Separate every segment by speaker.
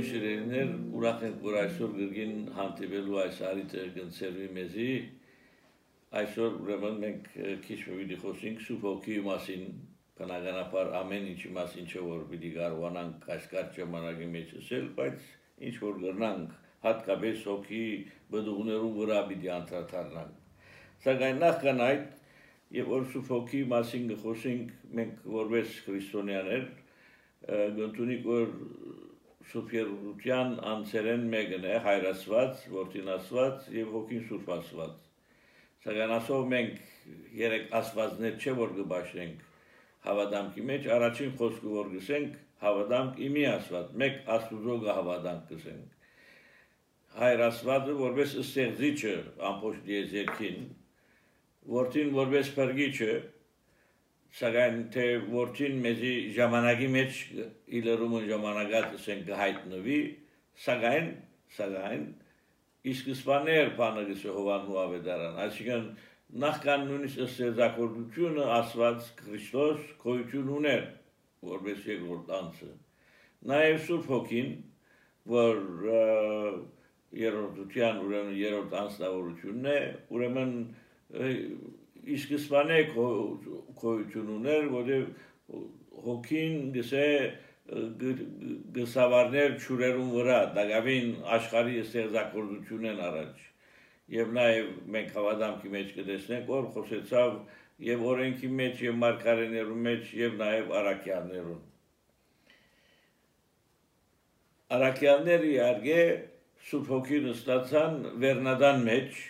Speaker 1: Ողջույն շիրերներ, ուրախ ենք, որ այսօր գրգին հանդիպելու այս արիթը գնցերվի մեզի, այսօր ուրեմն մենք քիչ պիտի խոսենք Սուրբ Հոգիի մասին, բնականաբար ամեն ինչի մասին չէ, որ պիտի կարողանանք այս կարճ ժամանակի մեջ ասել, բայց ինչ որ գրնանք, հատկապես Հոգիի բդուղներու վրա պիտի անդրադառնանք։ Սակայն նախքան այդ, եւ որ Սուրբ Հոգիի մասին խոսենք, մենք որպես քրիստոնյաներ գտնունիկ որ Սուրբ Երուսաղեմ անցերեն մեկն է հայրացված, որդինացված եւ հոգին Սուրբ ասված։ Սակայն ասով մենք երեք ասվածներ չէ որ կբաշխենք հավատամքի մեջ, առաջին խոսքը որ գսենք հավատամք իմի ասված, մեկ Աստուծո հավատամք գսենք։ Հայր ասվածը որպես ստեղծիչը ամբողջ դիեզերքին, որդին որպես փրկիչը, սակայն թե որդին մեզի ժամանակի մեջ իլերումն ժամանակات ասենք գահիտնվի, սակայն իսկսպաներ բանագիսը հովանու ավետարան, այսինքն նախքան նույնիսկ ստեղծագործությունը ասված Քրիստոս գոյություն ուներ, որպես երկրորդ անձը։ Նաև Սուրբ Հոգին, որ երրորդության ուրեմն երրորդ անձնավորությունն է, ուրեմն իսկսպանե գոյություն ուներ, որտեղ հոգին գսե գսավարներ ճուրերուն վրա, դակավին աշխարհի ստեղծագործությունն առաջ։ Եվ նաև մենք հավատամքի մեջ կտեսնենք, որ խոսեցավ եւ օրենքի մեջ եւ մարգարեներու մեջ եւ նաև առաքյալներուն։ Առաքյալները իհարկե Սուրբ Հոգին ստացան վերնադան մեջ,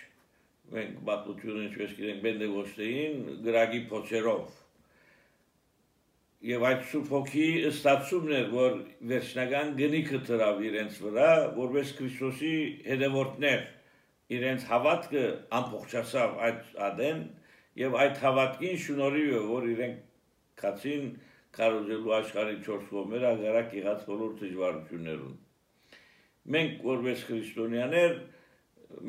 Speaker 1: մենք բացությունը ինչպես գիտենք Պենտեկոստեին գրագի փոչերով։ Եվ այդ Սուրբ Հոգիի ստացումն էր, որ վերջնական գնիքը դրավ իրենց վրա, որպես Քրիստոսի հետևորդներ, իրենց հավատքը ամբողջացավ այդ ադեն, եւ այդ հավատքին շնորհիվ է, որ իրենք կացին կարողելու աշխարհի 4 կողմերը ագարակ եղած բոլոր դժվարություններուն։ Մենք որպես քրիստոնյաներ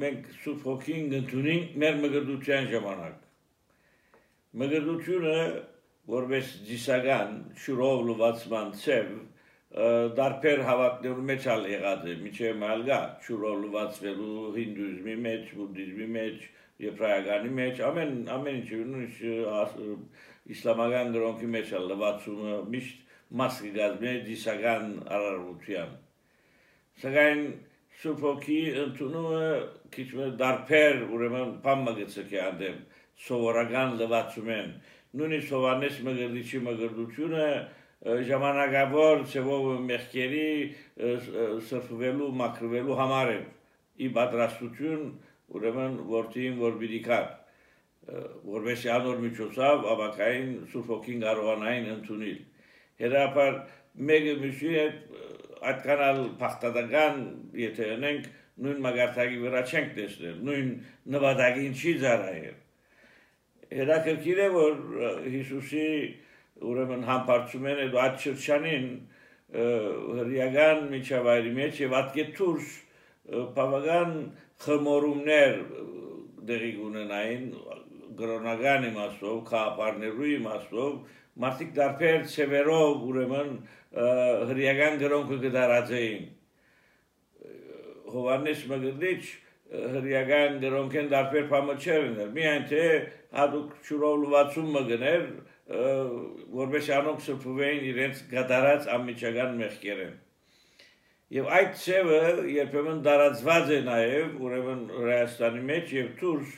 Speaker 1: մենք Սուրբ Հոգին գտնունենք մեր մգրդության ժամանակ։ Մգրդությունը որպես դիսական շուրով լվացման ցև դարբեր հավատներու մեջ ալ եղած է, միջև մալգա շուրով լվացվելու հինդուիզմի մեջ, բուդդիզմի մեջ, եբրայականի մեջ, ամեն ինչ իսլամական գրոնքի մեջ ալ լվացումը միշտ մաս կգազմի դիսական արարողության։ Սակայն Սուրբ Հոգիի ընդունումը քիչ դարբեր ուրեմն բամագծքի անդեմ սովորական լվացումեն նույնիսկ Հովանես Մգրդիչի մգրդությունը ժամանակավոր ցևով մեղքերի սրբվելու մաքրվելու համար է ի պատրաստություն ուրեմն որդին որ բիդիկար որպես անոր միջոցով ավակային Սուրբ Հոգին կարողանային ընդունել հերապար մեկը միշի այդքան փախտական եթե ունենք նույն մագարտակի վրա չենք տեսնել, նույն նվադագին չի ծառայել։ Հետաքրքիր է, որ Հիսուսի ուրեմն համբարձում են այդ շրջանին հրեական միջավայրի մեջ եւ ատկե դուրս բավական խմորումներ դեղի ունենային գրոնական իմաստով, քաղաքարներու իմաստով, մարդիկ դարբեր ցևերով ուրեմն հրեական գրոնքը կդարածեին։ Հովանես Մգրդիչ հրեական գրոնքեն դարբեր բամը չէր ուներ, միայն թե հատուկ շուրով լվացում մգներ, որպես անոնք սրբվեին իրենց գդարած անմիջական մեղքերեն։ Եվ այդ ցևը երբեմն դարածված է նաև ուրեմն Հայաստանի մեջ եւ դուրս,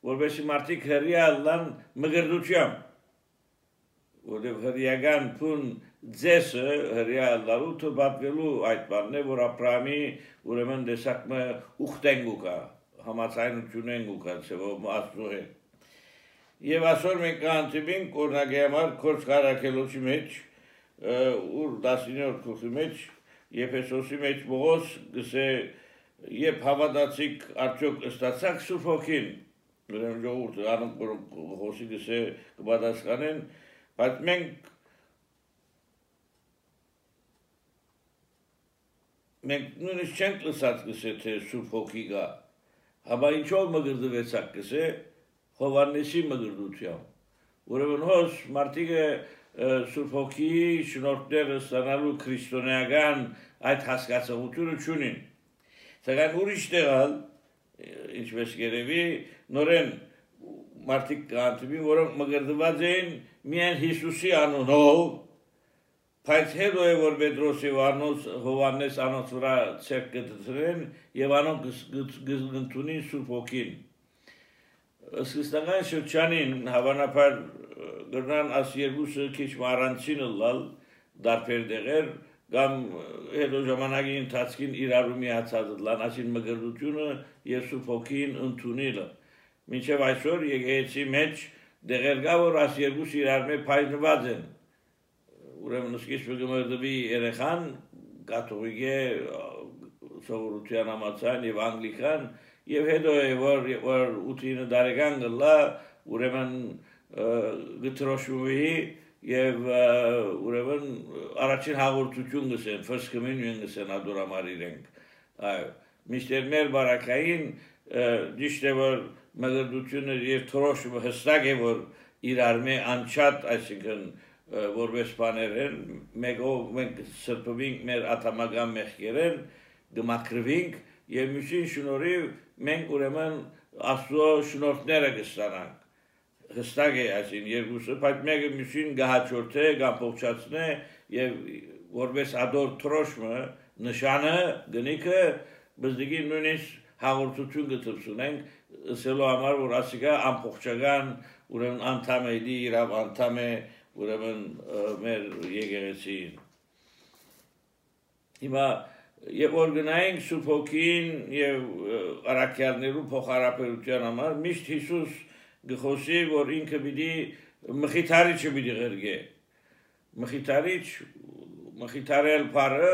Speaker 1: որպես մարդիկ հրեալան մգրդությամբ, որտեղ հրեական փուն ձեսը հրեալարու թվատվելու այդ բանն է, որ Աբրահամի ուրեմն դեսակը ուխտեն գուկա, համացայնությունեն գուկա, ցեվով աստծո հետ։ Եվ այսօր մենք կանցնենք օրինակի համար Քորձ Կարաքելոցի մեջ, ուր 19-րդ գլխի մեջ, Եփեսոսի մեջ Պողոս գսե երբ հավատացիք արդյոք ստացաք Սուրբ Հոգին, ուրեմն ժողովուրդը անոնք խոսի գսե կպատասխանեն, բայց մենք նույնիսկ չենք լսած գսե թե Սուրբ Հոգի գա, հաբա ինչով մգրդվեցաք գսե Հովանեսի մգրդությամբ։ Ուրեմն մարդիկը Սուրբ Հոգիի շնորհները ստանալու քրիստոնեական այդ հասկացողությունը չունին։ Սակայն ուրիշ տեղալ, ինչպես երևի, նորեն մարդիկ կանտվի, որոնք մգրդված էին միայն Հիսուսի անունով, բայց հետո է, որ Պետրոսի Հովհաննես անոնց վրա ցերկ կդրեն եւ անոնք գտնունին Սուրբ Հոգին։ Սկզբնական շրջանին հավանաբար գրնան աս երկուսը քիչ առանցին լալ դարբեր դեղեր կամ հետո ժամանակի ընթացքին իրարու միացած լան ասին մգրդությունը եւ Սուրբ Հոգին ընդունելը։ Մինչեւ այսօր եկեղեցի մեջ դեղեր կա, որ աս երկուսը իրար մեջ փայլված են։ Ուրեմն սկիզբը գմրդվի երեխան կաթողիկ է սովորության համացան եւ անգլիկան եւ հետո է որ 8 տարեկան գլա ուրեմն գտրոշուի եւ ուրեմն առաջին հաղորդություն գսեն first communion գսեն ադորամար իրենք այո միշտեր մեր բարակային դիշտե որ մգրդությունը եւ թրոշումը հստակ է որ իրար մե անչատ այսինքն որպես բաներեն մեկով մենք սրբվինք մեր աթամական մեղքերեն գմակրվինք եւ միշին շնորհիվ մենք ուրեմն Աստծո շնորհները կստանանք հստակ է այսին երկուսը բայց մեկը միշին գահաճորթե կամ փոխչացնե եւ որպես ադոր թրոշմը նշանը գնիկը բզդիգի նույնիսկ հաղորդություն գտցունենք ասելու համար որ ասիկա ամփոխչական ուրեմն անդամ է իրավ անդամ է ուրեմն մեր եկեղեցին հիմա եւ որ գնայինք Սուրբ Հոգին եւ առաքյալներու փոխհարաբերության համար միշտ Հիսուս գխոսի որ ինքը պիտի մխիթարիչը պիտի ղրգե մխիթարել բառը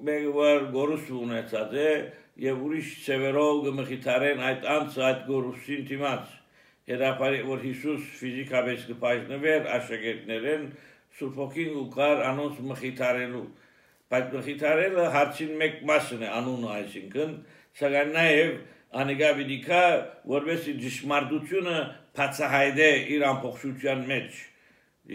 Speaker 1: մեկ որ գորուս ունեցած է եւ ուրիշ ծևերով գմխիթարեն այդ անձը այդ գորուսին դիմաց Հետապարի որ Հիսուս ֆիզիկապես կպայտնվեր աշակերտներեն Սուրբ Հոգին ու կար անոնց մխիթարելու բայց մխիթարելը հարցին մեկ մասն է անունը այսինքն սակայն նաեւ անիկա պիտի որովհետեւ ճշմարտությունը բացահայտե իր ամբողջության մեջ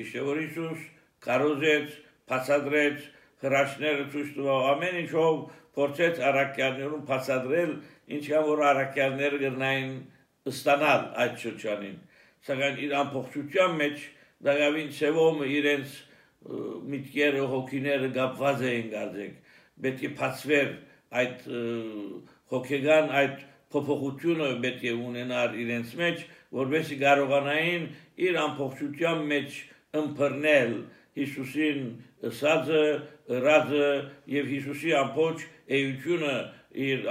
Speaker 1: իշե որ Հիսուս կարոզեց բացադրեց հրաշները ցույց տվավ ամեն ինչով փորձեց առաքյալներուն բացադրել ինչքան որ առաքյալները գտնային ստանալ այդ շրջանին սակայն իր ամբողջության մեջ դավին ծևոմը իրենց միտքերը հոգիները գապված էին գարձեք պետք է բացվեր այդ հոգեգան այդ փոփոխությունը պետք է ունենար իրենց մեջ որովհետեւ կարողանային իր ամբողջության մեջ ըմբռնել Հիսուսին ըսածը ռազը եւ Հիսուսի ամբողջ էությունը իր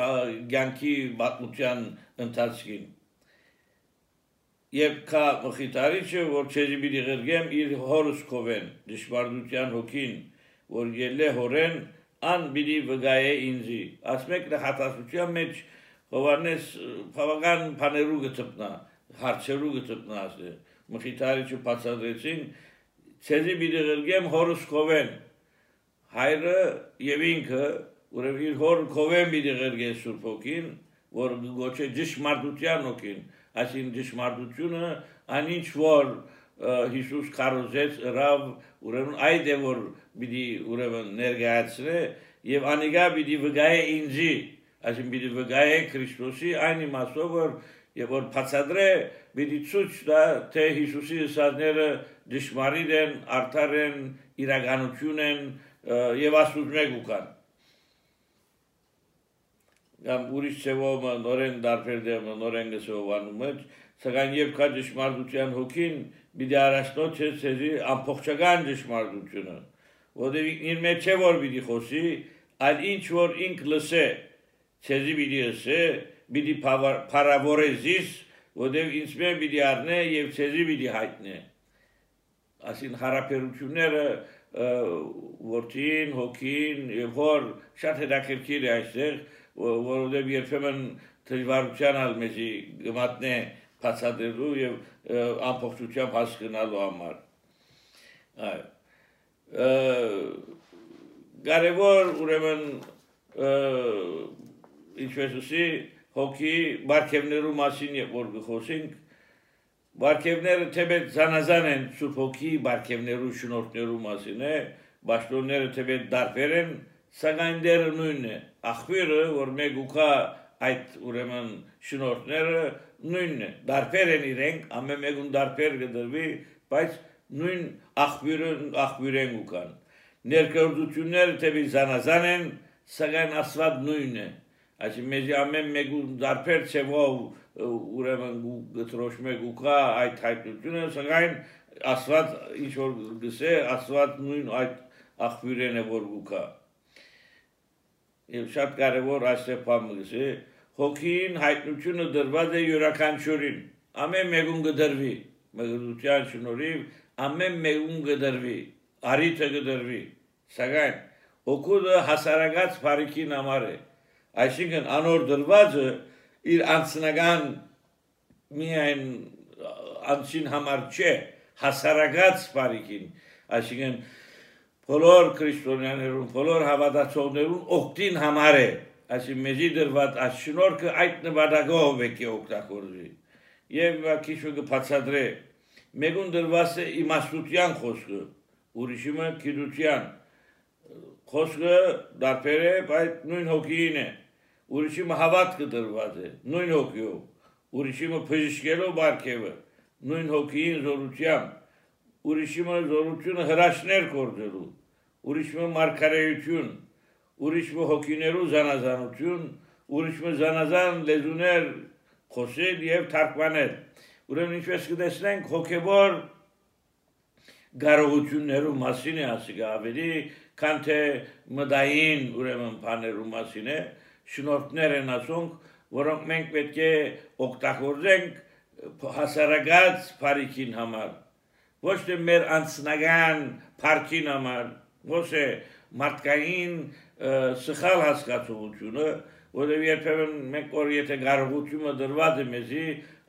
Speaker 1: ցանկի բացության ընթացքին Եվ կա մխիթարիչը, որ չեզի պիտի ղրգեմ իր հորս կովեն, դժվարդության հոգին, որ ելե հորեն, ան պիտի վգայե ինձի։ Ասմեք նխատասության մեջ Հովհաննես բավական բաներու գտնա, հարցերու գտնա ասե։ Մխիթարիչը բացատրեցին, չեզի պիտի ղրգեմ հորս կովեն։ Հայրը եւ ինքը, ուրեմն իր հոր կովեն պիտի ղրգե Սուրբ Հոգին, որ գոչե դժմարտության հոգին։ Այսին դժմարտությունը անինչ որ Հիսուս կարոզեց ռավ ուրեմն այդ է որ պիտի ուրեմն ներկայացնե եւ անիկա պիտի վգայե ինձի այսին պիտի վգայե Քրիստոսի այն իմաստով որ եւ որ բացադրե պիտի ցույց տա թե Հիսուսի ուսանները դժմարիտ են արդար են իրականություն են եւ Աստուծո մեկ ուկան Կամ ուրիշ ծևով նորեն դարբեր դեմ նորեն գսովանում մեջ սակայն եւ կա դժմարտության հոգին պիտի առաջնոց ցեզի ամբողջական դժմարտությունը որովհետեւ իր մեջ է որ պիտի խոսի այլ ինչ որ ինք լսե ցեզի պիտի ասե պիտի փարավորեզիս որովհետեւ ինձ մե պիտի առնե եւ ցեզի պիտի հայտնե ասին հարաբերությունները որդին հոգին եւ հոր շատ հետաքրքիր է այստեղ որովհետև երբեմն դժվարության ալ մեզի գմատնե բացատրելու եւ ամբողջությամբ հասկանալու համար կարևոր ուրեմն ինչպես ասի հոգի բարգևներու մասին որ գխոսենք բարգևները թեպետ զանազան են Սուրբ Հոգի բարգևներու շնորհներու մասին է Բաշտոնները թեպետ դարբեր են սակայն դերը նույնն է, աղբյուրը, որ մեկ ուկա այդ ուրեմն շնորհները նույնն է, դարբեր են իրենք, ամեն մեկուն դարբեր կդրվի, բայց նույն աղբյուրեն ուկան։ Ներկայությունները թեպի զանազան են, սակայն Աստված նույնն է։ Այսինքն մեզ ամեն մեկուն դարբեր ցևով ուրեմն գտրոշմե գուկա այդ հայտնությունը, սակայն Աստված ինչ որ գսե, Աստված նույն այդ աղբյուրեն է որ գուկա։ Եվ շատ կարևոր այստեղ բան գսե, հոգին հայտնությունը դրված է յուրաքանչյուրին, ամեն մեկուն կդրվի, մեղրության շնորհիվ ամեն մեկուն կդրվի, արիթը կդրվի, սակայն օգուտը հասարակած բարիքին համար է, այսինքն անոր դրվածը իր անձնական միայն անձին համար չէ, հասարակած բարիքին, այսինքն բոլոր քրիստոնյաներուն, բոլոր հավատացողներուն օգտին համար է, այսինքն մեզի դրված այս շնորհքը այդ նպատակով է օգտագործվի։ Եվ քիչ կբացատրե, մեկուն դրված է իմաստության խոսքը, ուրիշը գիտության խոսքը դարբեր է, բայց նույն հոգին է, ուրիշը հավատքը դրված է, նույն հոգիով, ուրիշը բժշկելով բարգևը, նույն հոգին զորությամբ, ուրիշը զորությունը հրաշներ կործելու, ուրիշը մարգարեություն, ուրիշը հոգիներու զանազանություն, ուրիշը զանազան լեզուներ խոսել եւ թարգմանել։ Ուրեմն ինչպես կտեսնենք հոգեվոր կարողություններու մասին է ասիկա ավելի, քան թե մտային ուրեմն բաներու մասին է, շնորհներ են ասոնք, որոնք մենք պետք է օգտագործենք հասարակած բարիքին համար, ոչ թե մեր անձնական փառքին համար, ոչ թե մարդկային սխալ հասկացողությունը, որովհետև երբեմն մենք որ եթե կարողությունը դրված է մեզի,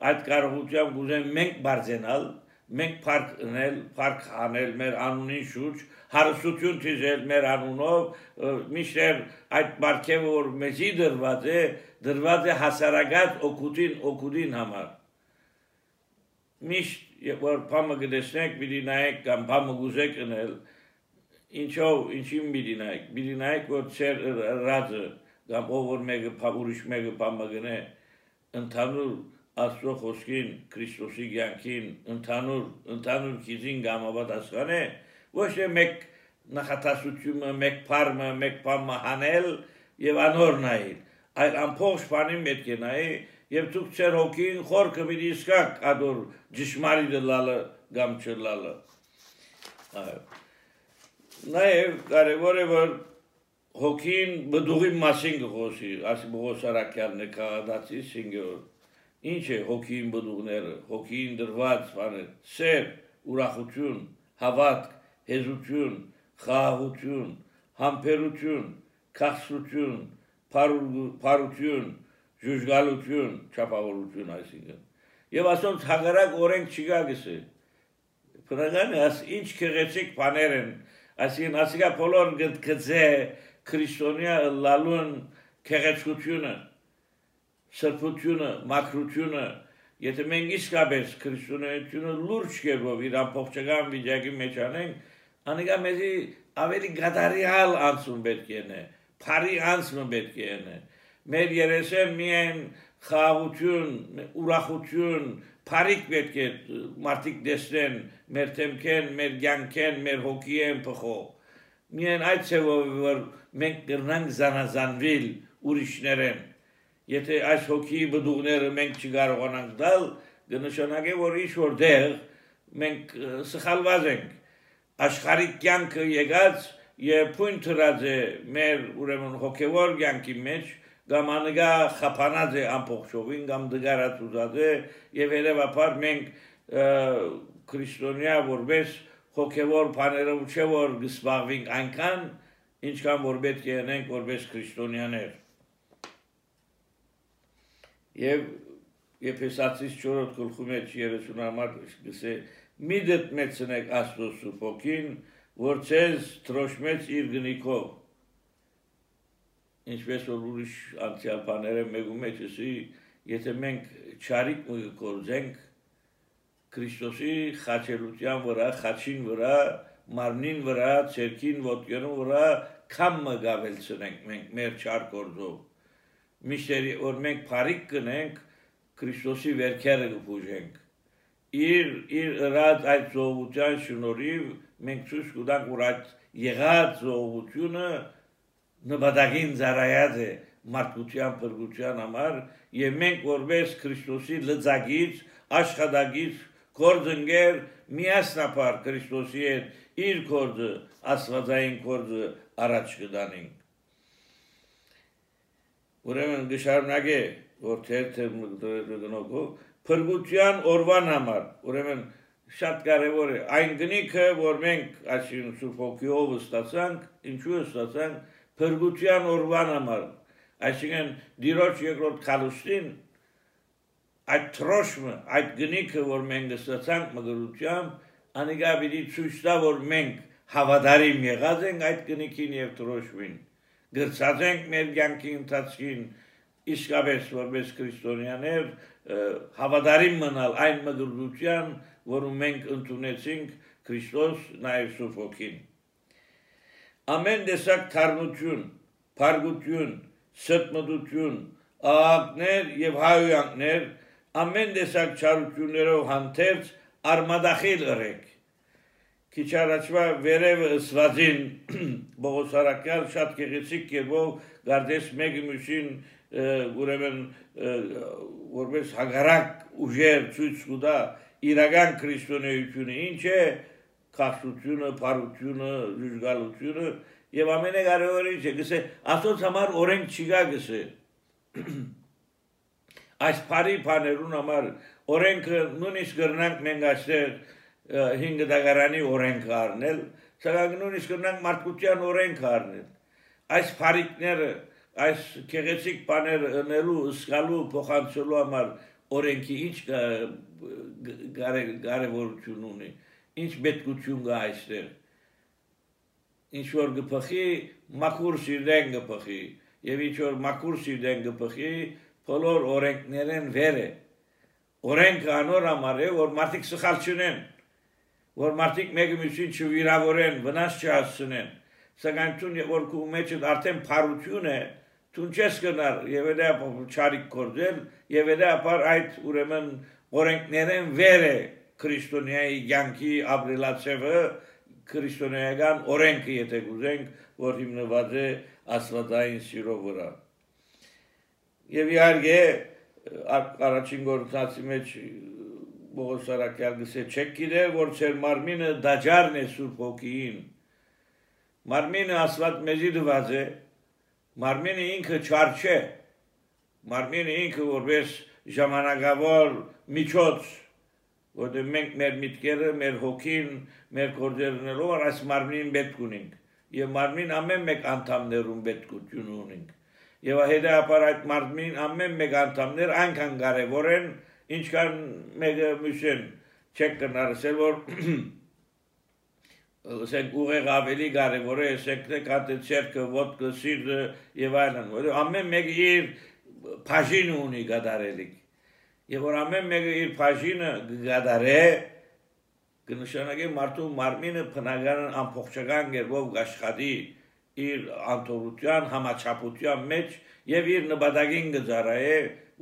Speaker 1: այդ կարողությամբ կուզենք մենք բարձենալ, մենք փառք անել մեր անունին շուրջ, հարստություն թիզել մեր անունով, միշտ այդ բարգևը որ մեզի դրված է հասարակած օգուտին համար։ Միշտ որ բամը գտեսնեք, պիտի նայեք կամ բամը գուզեք անել, ինչին պիտի նայեք, որ ծեր ռածը կամ ով որ մեկը ուրիշ մեկը բամը գնե, ընդհանուր Աստծո խոսքին, Քրիստոսի կյանքին, ընդհանուր քիզին գամապատասխան է, ոչ թե մեկ նախատասությունը, մեկ փառը, մեկ բամը հանել եւ անոր նայել, այլ ամբողջ բանին պետք է նայի եւ դուք ծեր հոգին խորքը մի իսկակ ադոր ճշմարիտ լալը կամ չլալը։ Նաեւ կարևոր է որ հոգին բդուղի մասին գխոսի, ասի բողոսարակյալն է քաղաքացի 5-րդ։ Ինչ է հոգին բդուղները, հոգին դրված բաներ, սեր, ուրախություն, հավատք, հեզություն, խաղաղություն, համբերություն, քաղցրություն, փարություն, ժուժգալություն, չափավորություն այսինքն։ Եվ ասոնց հագարակ օրենք չկա գսե։ Բնական է, ինչ քեղեցիկ բաներ են, այսինքն ասիկա բոլոր գծե քրիստոնյա լալուն քեղեցկությունը, սրբությունը, մաքրությունը, եթե մենք իսկապես քրիստոնեությունը լուրջ կերպով իր ամբողջական վիճակի մեջ անենք, անիկա մեզի ավելի գադարիալ անցում պետք է, փարի անցումը պետք է։ Մեր երեսեն միայն խաղաղություն, ուրախություն, փարիք պետք է մարդիկ տեսնեն, մեր թեմքեն, մեր կյանքեն, մեր հոգիեն փոխող։ Միայն այդ ցեվով որ մենք կրնանք զանազանվել ուրիշներեն։ Եթե այս հոգի բդուղները մենք չկարողանանք տալ, կնշանակե որ ինչ-որ դեղ մենք սխալված ենք։ Աշխարհիկ կյանքը եկած եւ փույն թրած է մեր ուրեմն հոգեվոր կյանքի մեջ, կամ անգա խափանած է ամբողջովին, կամ դգարացած է եւ երևաբար մենք քրիստոնյա որպես հոգեվոր բաներով չէ որ գսպաղվենք այնքան, ինչքան որ պետք է անենք որպես քրիստոնյաներ։ Եվ Եփեսացիս 4 գլխի մեջ 30 համար գսե մի դետնեցնեք Աստծո Սուրբ Հոգին, որ ցեզ թրոշմեց իր գնիկով։ Ինչպես որ ուրիշ անցյալ բաները մեկու մեջ էսի, եթե մենք չարիք կորձենք Քրիստոսի խաչելության վրա, խաչին վրա, մարմնին վրա, ցերքին, ոտքերուն վրա կամը գավելցնենք մենք մեր չար գործով միշտերի որ մենք փարիկ կնենք Քրիստոսի վերքերը կփուժենք իր ըրած այդ զոհության շնորհիվ մենք ցույց կտանք որ այդ եղած զոհությունը նպատակին ծառայած է մարդկության փրկության համար եւ մենք որպես Քրիստոսի լծակից աշխատակից գործընկեր միասնապար Քրիստոսի հետ իր գործը աստվածային գործը առաջ կդանենք ուրեմն գշարունակե որ թերթը փրկության օրվան համար ուրեմն շատ կարևոր է այն գնիքը որ մենք այսին Սուրբ Հոգիով ստացանք ինչու ստացանք փրկության օրվան համար այսինքն դիրոջ երկրորդ քալուստին այդ թրոշմը այդ գնիքը որ մենք ստացանք մգրությամբ անիկա պիտի ցույց տա որ մենք հավատարիմ եղած ենք այդ գնիքին եւ թրոշմին գրծած ենք մեր կյանքի ընթացքին իսկապես որպես քրիստոնյաներ հավատարիմ մնալ այն մգրության որում մենք ընդունեցինք Քրիստոս նաեւ Սուրբ Հոգին ամեն տեսակ թարմություն փարգություն սրտմտություն աղաղակներ եւ հայոյանքներ ամեն տեսակ չարություններով հանդերձ արմադախիլ ըրեք քիչ առաջվա վերևը ըսվածին Բողոսարակյալ շատ գեղեցիկ կերպով գարդես մեկի մյուսին ուրեմն որպես հագարակ ուժեր ցույց կտա իրական քրիստոնեությունը ինչ է քաշությունը, փարությունը, ժուժգալությունը եւ ամենակարևորը ինչ է գսե Աստծո համար օրենք չկա գսե այս բարի բաներուն համար օրենքը նույնիսկ գրնանք մենք այստեղ 5 դագարանի օրենքը առնել սակայն նույնիսկ գրնանք մարդկության օրենքը առնել այս բարիկները այս քեղեցիկ բաները ընելու ըսկալու փոխանցելու համար օրենքի ինչ կարևորություն ունի ինչ պետքություն կա այստեղ ինչ որ գփխի մաքուր սիրտեն գփխի եւ ինչ որ մաքուր սիրտեն գփխի բոլոր օրենքներեն վեր է օրենքը անոր համար է որ մարդիկ սխալ չունեն որ մարդիկ մեկը մյուսին չվիրավորեն վնաս չհասցնեն սակայն ցուն որ քու մեջը արդեն փարություն է ցուն չես կնար եւ դա չարիք կորձել եւ դա ապար այդ ուրեմն օրենքներեն վեր է քրիստոնեայի յանքի ապրելացևը քրիստոնեական օրենքը եթե գուզենք որ հիմնված է աստվածային սիրո վրա եւ իհարկե առաջին գործածի մեջ Բողոսարակյալ գսե չեք գիտեր որ ծեր մարմինը դաջարն է Սուրբ Հոգիին մարմինը աստված մեզի դված է մարմինը ինքը չար չէ մարմինը ինքը որպես ժամանակավոր միջոց որտեղ մենք մեր միտքերը մեր հոգին մեր գործերներով այս մարմնին պետք ունենք եւ մարմին ամեն մեկ անդամներուն պետքություն ունենք եւ հետեւաբար այդ մարմին ամեն մեկ անդամներ այնքան կարեւոր են ինչքան մեկը մյուսին չեք կնարսել որ ասենք ուղեղ ավելի կարևոր է ասենք կատեցերքը ոդկը սիրտը եւ այլն որ ամեն մեկը իր բաժին ունի գդարելիք եւ որ ամեն մեկը իր բաժինը գդարե կնշանակի մարդու մարմինը բնական ամբողջական գերբով աշխատի իր անտորության համաչափության մեջ եւ իր նպատակին գծարայե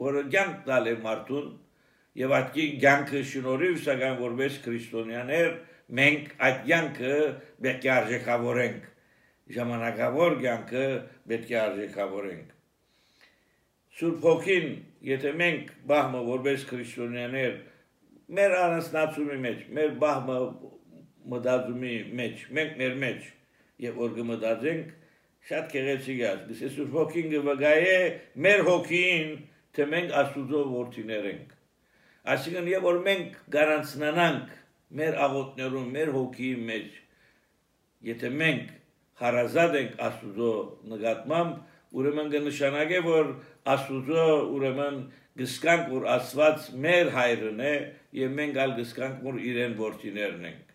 Speaker 1: որը կյանք տալ է մարդուն եւ այդ կյանքը շնորհիվ սակայն որպես քրիստոնյաներ մենք այդ կյանքը պետք է արժեքավորենք ժամանակավոր կյանքը պետք է արժեքավորենք Սուրբ Հոգին եթե մենք բահմը որպես քրիստոնյաներ մեր անասնացումի մեջ մեր բահմը մտածումի մեջ մենք մեր մեջ եւ որ կմտածենք շատ գեղեցիկ է ասես Սուրբ Հոգին կվգայե մեր հոգին թե մենք Աստծո որդիներ ենք այսինքն եւ որ մենք գարանցնանանք մեր աղոթներում մեր հոգիի մեջ եթե մենք հարազատ ենք Աստծո նկատմամբ ուրեմն կնշանակե որ Աստծո ուրեմն գսկանք որ Աստված մեր հայրն է եւ մենք ալ գսկանք որ իրեն որդիներն ենք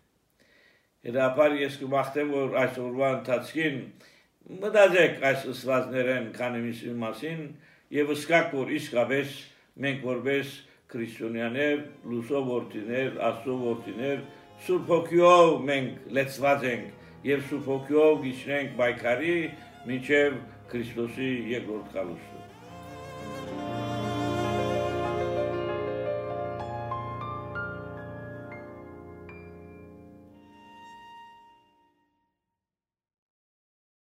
Speaker 1: Հետապար ես կմաղթեմ որ այս օրվա ընթացքին մտածեք այս ըսվածներեն քանիմիսի մասին եւ ըսկակ որ իսկապես մենք որպես քրիստոնյաներ, լուսո որդիներ, Աստծո որդիներ, Սուրբ Հոգիով մենք լեցված ենք եւ Սուրբ Հոգիով գիշնենք պայքարի մինչեւ Քրիստոսի երկրորդ գալուստը։